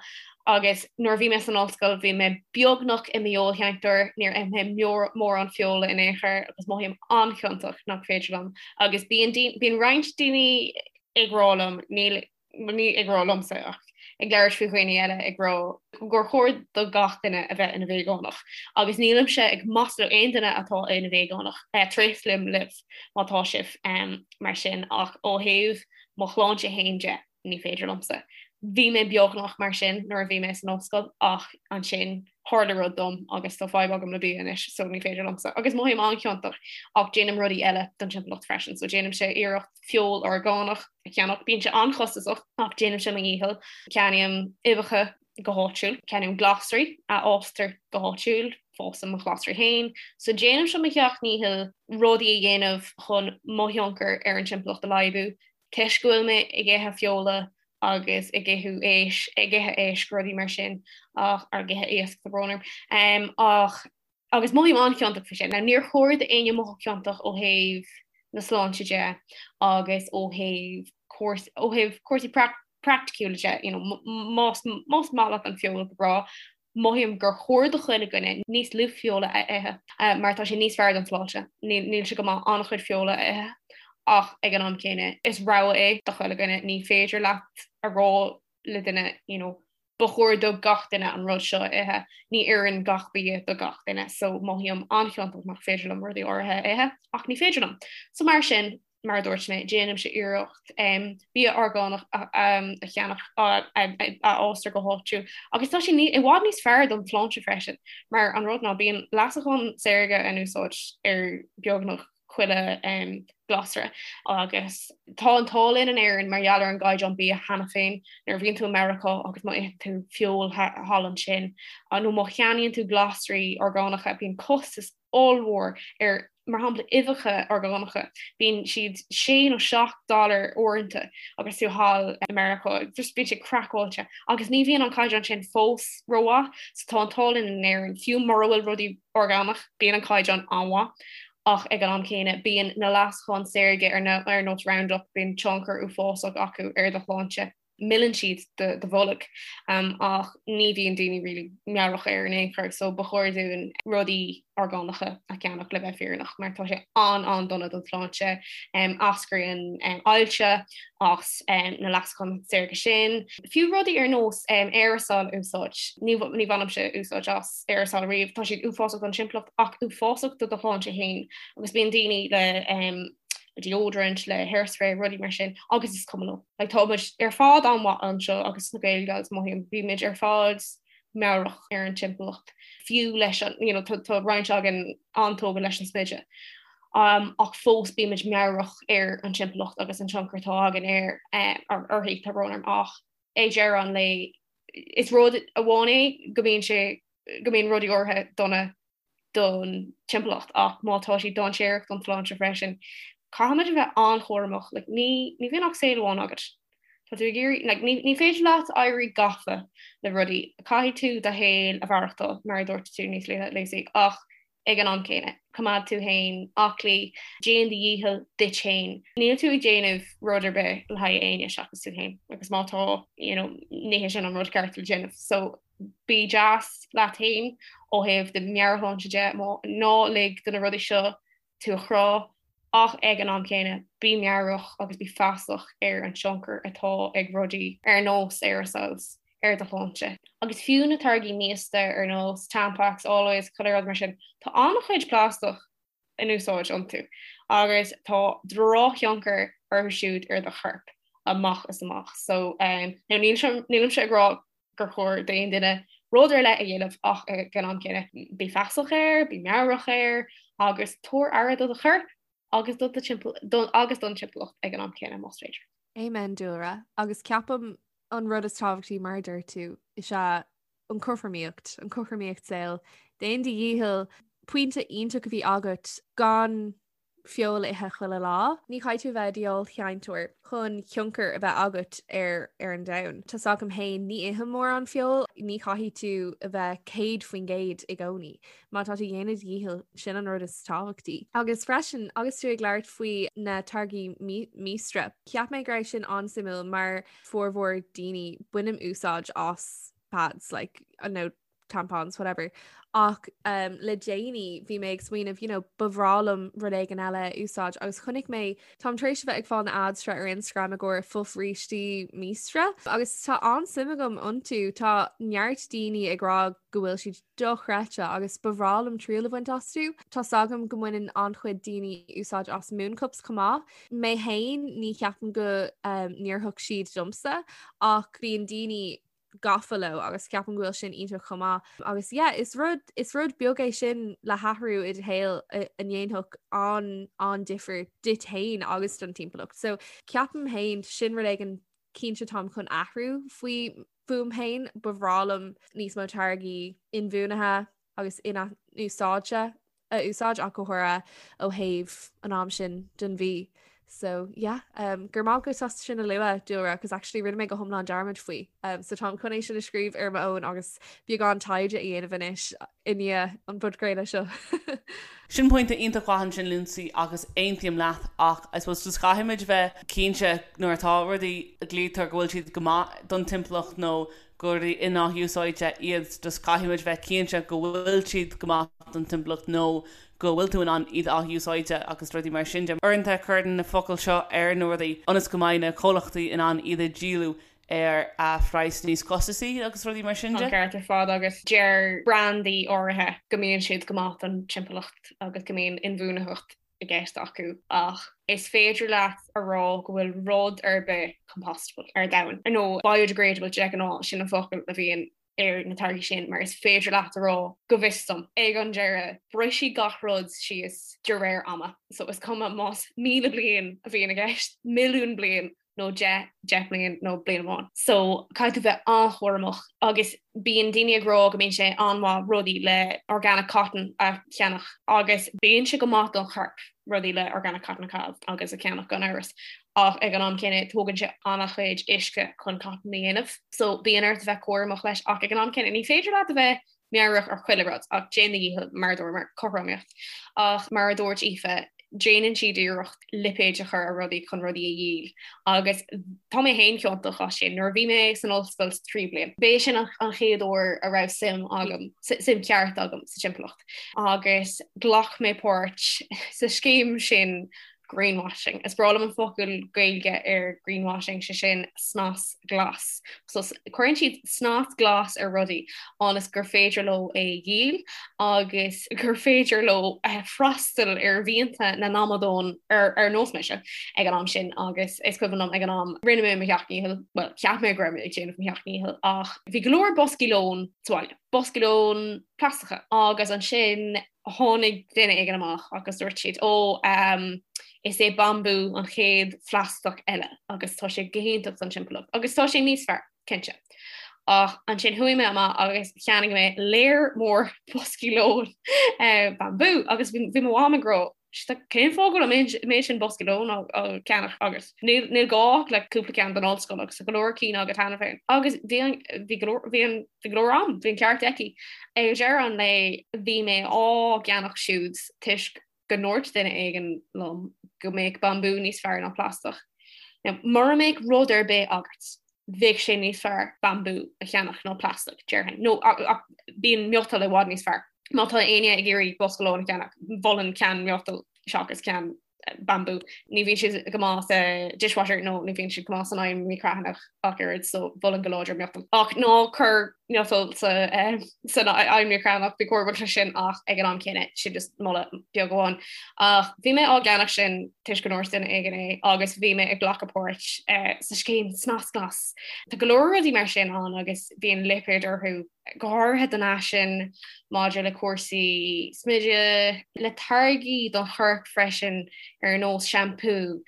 Agus nuair a bhí mé san ollscoil bhí mé beagnach i m'fheoilshéantóir, níor ith mé mórán feola in aon chor agus mothaím an-chiontach nach féidir liom. Agus bíonn bíonn roinnt daoine ag rá liom, níl, ní ag rá liomsa ach ag labhairt faoi dhaoine eile ag rá gur chóir do gach duine a bheith ina veigeánach. Agus nílimse ag maslú aon duine atá ina veigeánach, tréaslaím libh má tá sibh mar sin ach ó thaobh mo shláinte féin de, ní féidir liomsa. Bhí mé beagnach mar sin nuair a bhí mé san ollscoil ach ansin tharla rud dom agus tá fadhb agam le bia anois so ní féidir liomsa. Agus mothaím an-chiontach ach déanaim rudaí eile don timpeallacht freisin so déanaimse iarracht feoil orgánach a cheannach. Bíonn sé an-chostasach ach déanaimse mo dhícheall. Ceannaím uibheacha go háitiúil, ceannaím glasraí a fhástar go háitiúil, fásaim mo ghlasraí féin, so déanaimse mo sheacht ndícheall rudaí a dhéanamh chun mo thionchar ar an timpeallacht a laghdú, toisc go bhfuil mé ag ithe feola agus ag ithe éisc, ag ithe éisc, rudaí mar sin, ach, ag ithe iasc, tá brón orm, ach Agus mothaím an-chiontach faoi sin. Now níor chóir d'éinne mothú ciontach ó thaobh na sláinte de agus ó thaobh ó thaobh cúrsaí praiticiúla de, you know, más más maith leat an feoil go breá, mothaím gur chóir do chuile dhuine níos lú feola a ithe mar tá sé níos fearr don tsláinte. Níl sé go maith an-chuid feola a ithe ach ag an am céanna is rogha é do chuile dhuine, ní féidir leat a rá le duine, you know, ba chóir do gach duine an rud seo a ithe, ní oireann gach bia do gach duine, so mothaím an-chiontach nach féidir liom rudaí áirithe a ithe, ach ní féidir liom. So mar sin, mar a dúirt mé, déanaimse iarracht bia orgánach a cheannach a fhástar go háitiúil, agus tá sé i bhfad níos fearr don tsláinte freisin, mar an rud ná bíonn leasacháin saorga in úsáid ar beagnach chuile glasra agus tá an t-ádh linn in Éirinn mar gheall ar an gcaighdeán bia cheana féin. Nuair a bhíonn tú i Meiriceá agus má itheann tú feoil thall ansin nó má cheannaíonn tú glasraí orgánacha bíonn costas ollmhór ar mar shampla uibheacha orgánacha bíonn siad sé nó 7 dollar uaireanta agus tú thall i Meiriceá just bíonn sé craiceáilte agus ní bhíonn an caighdeán sin fós rómhaith so tá an t-ádh linn in Éirinn fiú mura bhfuil rudaí orgánach bíonn an caighdeán an-mhaith. Ach ag an am céanna, bíonn na leasacháin saorga ar nós Roundup, bíonn tionchar uafásach acu ar do shláinte. Milleann siad do bholg ach ní bhíonn daoine really meabhrach air in aon chor so ba chóir dúinn rudaí orgánacha a cheannach le bheith fírinneach mar tá sé an-an-dona don tsláinte. Eascraíonn ailse as na leasacháin saorga sin. Fiú rudaí ar nós aerasal a úsáid, ní bhainimse úsáid as aerasal riamh, tá siad uafásach don timpeallacht ach uafásach do do shláinte féin agus bíonn daoine le deodorant, le hairspray, rudaí mar sin agus is cuma leo. Like, tá muid ar fad an-mhaith anseo agus sna Gael Gals mothaím, bímid ar fad meabhrach ar an timpeallacht, fiú leis an, you know, tá, tá roinnt againn an-tógtha leis an smideadh. Um, ach fós bímid meabhrach ar an timpeallacht agus an tionchar atá againn ar, eh, uirthi, tá brón orm ach ag deireadh an lae is rud amháin é go mbíonn sé go mbíonn rudaí áirithe dona don timpeallacht ach má tá siad dainséarach don tsláinte freisin, caithfimid a bheith an-chúramach. Like, ní, ní bhíonn ach saol amháin agat. Tá tú ag iarraidh, like, ní, ní féidir leat éirí gafa le rudaí. Caithfidh tú do shaol a mhaireachtáil, mar a dúirt tú níos luaithe, Lucy, ach ag an am céanna, coimeád tú féin aclaí, déan do dhícheall duit féin. Níl tú ag déanamh rud ar bith le haghaidh éinne seachas tú féin, agus má tá, you know, ní hé sin an rud ceart le déanamh. So, bí deas leat féin ó thaobh do mheabhairshláinte de, ná lig do na rudaí seo tú a chrá, ach ag an am céanna, bí meabhrach agus bí feasach ar an tionchar atá ag rudaí ar nós aerosols ar do shláinte. Agus fiú na táirgí míosta ar nós Tampax, Always, chuile rud mar sin, tá an-chuid plaisteach in úsáid iontu agus tá drochthionchar orthu siúd ar do chorp amach is amach. So um, now nílimse ag rá gur chóir d'aon duine rud ar leith a dhéanamh ach ag an am céanna bí feasach air, bí meabhrach air agus tabhair aire do do chorp agus do do agus don timpeallacht ag an am céanna más féidir. Amen Dúlra. Agus ceapaim an rud is tábhachtaí mar a deir tú is ea an cothromaíocht, an cothromaíocht saoil. Déan do dhícheall pointe iontach a bhí agat gan feoil a ithe chuile lá. Ní chaithfidh tú a bheith i do fheoilsheinteoir chun tionchar a bheith agat ar ar an domhan. Tá's agam féin, ní ithim mórán feoil, ní chaithfidh tú a bheith 100% i gcónaí. Má tá tú ag déanamh do dhícheall, sin an rud is tábhachtaí. Agus freisin, agus tú ag labhairt faoi na táirgí míostra, cheap mé go raibh sin an-suimiúil mar formhór daoine, bainim úsáid as pads, like, nó tampons, whatever. Ach um, le déanaí bhí mé ag smaoineamh, you know, ba bhreá liom rud éigin eile a úsáid agus chonaic mé táim tar éis a bheith ag fáil na ads seo ar Instagram i gcomhair fobhrístí míostra agus tá an-suim agam iontu tá neart daoine ag rá go bhfuil siad dochreidte agus ba bhreá liom triail a bhaint astu. Tá's agam go mbaineann an-chuid daoine úsáid as mooncups chomh maith. Mé féin ní cheapaim go um, n-oirfeadh siad domsa ach bíonn daoine gafa leo agus ceapaim go bhfuil sin iontach chomh maith. Agus yeah, is rud is rud beag é sin le hathrú i do shaol a ndéanfadh an an-difear duit féin agus don timpeallacht. So ceapaim féin sin rud éigin cinnte táim chun athrú faoi fúm féin, ba bhreá liom níos mó táirgí inbhuanaithe agus in-athúsáidte a úsáid ach go háirithe ó thaobh an am sin den mhí. So yeah, um, go raibh maith agat as sin a lua Dúlra, cos actually rinne mé go hiomlán dearmad faoi. Um, so táim chun é sin a scríobh ar m'fhón agus beagán taighde a dhéanamh anois i ndiaidh an phodchraoladh seo. Sin pointe iontach mhaith ansin Lucy agus aontaím leat ach I suppose just caithfimid bheith cinnte nuair atá rudaí a ghlaoitear go bhfuil siad go maith don timpeallacht nó gur rudaí in-athúsáidte iad just caithfimid bheith cinnte go bhfuil siad go maith don timpeallacht nó go bhfuil tú in ann iad a athúsáid agus rudaí mar sin de. Uaireanta cuireann na focail seo ar na rudaí ionas go mbeidh na comhlachtaí in ann iad a dhíol ar phraghas níos costasaí agus rudaí mar sin de. Tá ceart ar fad agus deir brandaí áirithe go mbíonn siad go maith don timpeallacht agus go mbíonn inbhuanaitheacht i gceist acu ach is féidir leat a rá go bhfuil rud ar bith compostable ar domhan, nó biodegradable de ghnáth, sin an focal a bhíonn ar na táirgí sin, mar is féidir leat a rá, go bhfios dom, ag an deireadh, brisfidh gach rud síos de réir ama. So is cuma más 1,000 bliain a bhíonn i gceist, milliún bliain, nó 10, 10 mbliain nó bliain amháin. So caithfidh tú bheith an-chúramach agus bíonn daoine ag rá go mbíonn sé an-mhaith rudaí le organic cotton a cheannach agus bíonn sé go maith don chorp rudaí le organic cotton a chaitheamh agus a cheannach gan amhras ach ag an am céanna tógann sé an-chuid uisce chun cotton a dhéanamh. So bíonn ort a bheith cúramach leis ach ag an am céanna ní féidir leat a bheith meabhrach ar chuile rud ach déan do dhícheall mar a dúramar, cothromaíocht. Ach mar a dúirt Aoife, Déanann siad iarracht lipéid a chur ar rudaí chun rudaí a dhíol agus tá mé féin ciontach as sin. Nuair a bhí mé san ollscoil sa tríú bliain, b'é sin an chéad uair a raibh suim agam, suim ceart agam sa timpeallacht agus ghlac mé páirt sa scéim sin greenwashing. Is breá liom an focal Gaeilge ar greenwashing, sé sin snas glas. So cuireann siad snas glas ar rudaí ionas gur féidir leo é a dhíol agus gur féidir leo freastal ar mhianta na n-amadán ar nós mise ag an am sin agus is cuimhin liom ag an am rinne mé mo sheacht ndícheall, bhuel cheap mé go raibh mé ag déanamh mo sheacht ndícheall ach bhí go leor boscaí lóin sa bhaile, boscaí lóin plaisteacha agus ansin tháinig duine éigin amach agus dúirt siad, Ó, is é bambú an chéad phlaisteach eile agus tá sé go hiontach don timpeallacht agus tá sé níos fearr, cinnte. Ach ansin chuaigh mé amach agus cheannaigh mé léar mór boscaí lóin bambú agus bhí mo mham ag rá, Cén fáth go bhfuil an méid sin boscaí lóin á gceannach agat? Níl gá ach le cúpla ceann don ollscoil agus tá go leor cinn agat cheana féin. Agus bhí an, bhí go leor, bhí an, bhí go leor am, bhí an ceart aici. Ag deireadh an lae bhí mé á gceannach siúd toisc go ndúirt duine éigin liom go mbeadh bambú níos fearr ná plaisteach. Now, mura mbeadh rud ar bith agat, bheadh sé níos fearr bambú a cheannach ná plaisteach, déarfainn. Nó ach bíonn miotal i bhfad níos fearr. Má tá éinne ag iarraidh bosca lóin a cheannach, mholfainn ceann miotail seachas ceann bambú. Ní bhíonn siad go maith sa dishwasher nó ní bhíonn siad go maith san oigheann micreathonnach ach oiread so mholfainn go láidir miotal. Ach ná cuir miotal sa eh, san oigheann micreathonnach bí cúramach leis sin ach ag an am céanna sin just moladh beag amháin. Ach bhí mé á gceannach sin toisc go ndúirt duine éigin é agus bhí mé ag glacadh páirt eh, sa scéim snas glas. Tá go leor rudaí mar sin ann agus bíonn lipéid orthu go háirithe don fhaisean, maidir le cúrsaí smididh, le táirgí don chorp freisin ar nós seampú.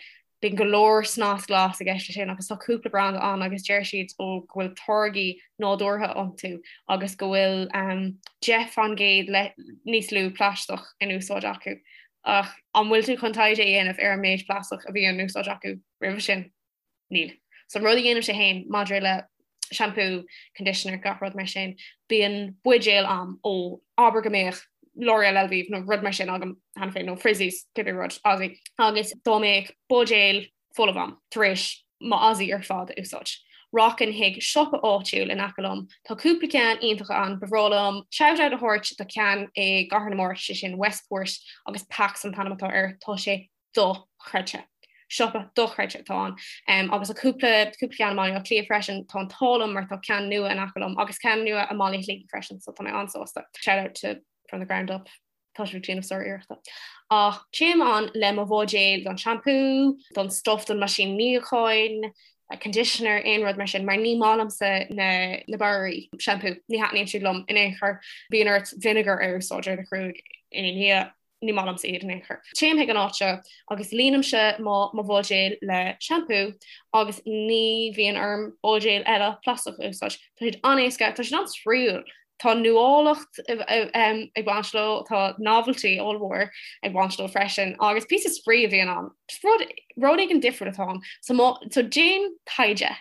Bíonn go leor snas glas i gceist leis sin agus tá cúpla branda ann agus deir siad ó go bhfuil táirgí nádúrtha iontu agus go bhfuil 10% le níos lú plaisteach in úsáid acu. Ach an bhfuil tú chun taighde a dhéanamh ar an méid plaisteach a bhí in úsáid acu roimhe sin? Níl. So an rud a dhéanaimse féin maidir le shampoo, conditioner, gach rud mar sin, bíonn buidéal a'm ó abair go mbeadh L'Oreal Elvive nó rud mar sin agam cheana féin nó Frizzies, cibé rud, Aussie, agus dá mbeadh buidéal folamh a'm tar éis mo Aussie ar fad a úsáid, rachainn chuig siopa áitiúil in aice liom, tá cúpla ceann iontacha ann, ba bhreá liom shout out a thabhairt do cheann i gCathair na Mart, sé sin Westport agus Pax an t-ainm atá air, tá sé dochreidte. Siopa dochreidte atá ann. Agus tá cúpla cúpla ceann i mBaile Átha Cliath freisin, tá an t-ádh liom mar tá ceann nua in aice liom agus ceann nua i mBaile Shligigh freisin, so tá mé an-sásta. Shout out to From the Ground Up, tá sibh ag déanamh sár-iarrachta. Ach téim ann le mo bhuidéal don shampoo, don stuff don meaisín níocháin, conditioner, aon rud mar sin, mar ní maith liomsa na na barraí shampoo, ní thaitníonn siad liom in aon chor. Bíonn ort vinegar a úsáid ar do ghruaig ina ndiaidh. ní maith liomsa iad in aon chor. Téim chuig an áit seo agus líonaimse mo mo bhuidéal le seampú agus ní bhíonn orm buidéal eile plaisteach a úsáid. Tá siad an-éasca, tá siad an-spraíúil. Tá nuálacht ag baint leo, tá novelty ollmhór ag baint leo freisin agus píosa spraoi a bhíonn ann. Rud rud éigin difriúil atá ann. So má so déan taighde.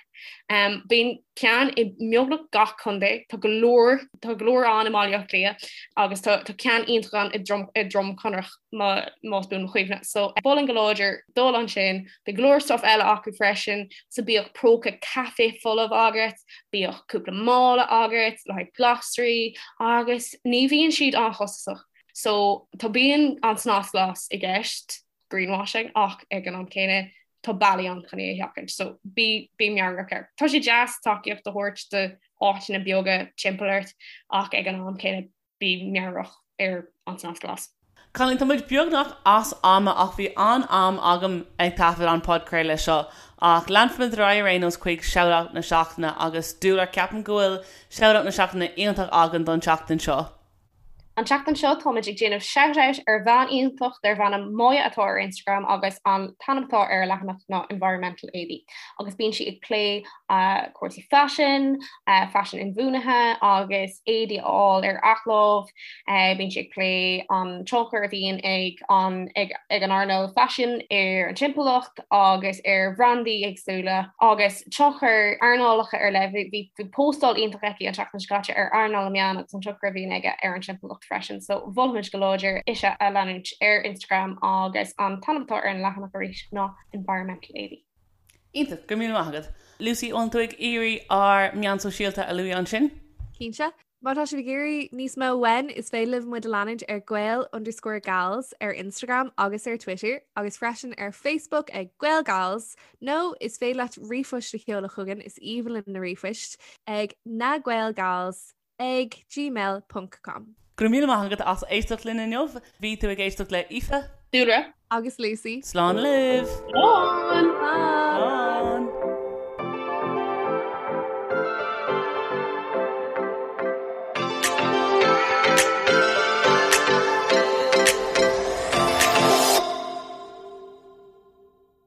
Um, bíonn ceann i mbeagnach gach contae, tá go leor tá go leor ann i mBaile Átha Cliath agus tá tá ceann iontach ann i Drom i Droim Conrach má más buan mo chuimhne. So mholfainn go láidir dul ansin, bíonn go leor stuff eile acu freisin, so bíodh próca caife folamh agat, bíodh cúpla mála agat le haghaidh glasraí agus ní bhíonn siad an-chostasach. So tá bíonn an snas glas i gceist, greenwashing ach ag an am céanna tá bealaí ann chun é a sheachaint so bí bí meabhrach air. Tá sé deas tacaíocht a thabhairt do áiteanna beaga timpeall ort ach ag an am céanna bí meabhrach ar an snas glas. Cailíní, tá muid beagnach as ama ach bhí an-am agam ag taifead an podchraoladh seo ach leanfaimid ar aghaidh ar aon nós chuig Shout-Out na Seachtaine agus Dúlra ceapaim go bhfuil Shout-Out na Seachtaine iontach againn don tseachtain seo. An tseachtain seo táimid ag déanamh shout out ar bhean iontach darb ainm Moya atá ar Instagram agus an t-ainm atá ar a leathanach ná Environmental Éadaí agus bíonn sí ag plé cúrsaí faisin, faisean inbhuanaithe agus éadaí a fháil ar athlámh. Bíonn sí ag plé an tionchar a bhíonn ag an ag an earnáil faisin ar an timpeallacht agus ar bhrandaí éagsúla agus tionchar earnálacha ar leith. Bhí postáil iontach aici an tseachtain seo caite ar earnáil na meán agus an tionchar a bhíonn aige ar an timpeallacht. timpeallacht freisin so mholfainnse go láidir ise a leanúint ar Instagram agus an t-ainm atá ar an leathanach arís ná Environmental Ailbhe. Iontach, go raibh míle maith agat. Lucy, an bhfuil tú ag iarraidh ár meáin sóisialta a lua ansin? Cinnte. Má tá sibh ag iarraidh níos mó uainn, is féidir libh muid a leanúint ar Gael underscore Gals ar Instagram agus ar Twitter, agus freisin ar Facebook ag Gael Gals, nó is féidir leat ríomhphost a sheoladh chugainn, is aoibhinn linn na ríomhphoist, ag nagaelgals ag gmail ponc com. Go raibh míle maith agat as éisteacht linn inniu. Bhí tú ag éisteacht le Aoife. Dúlra. Agus Lucy. Slán libh! Slán! Slán!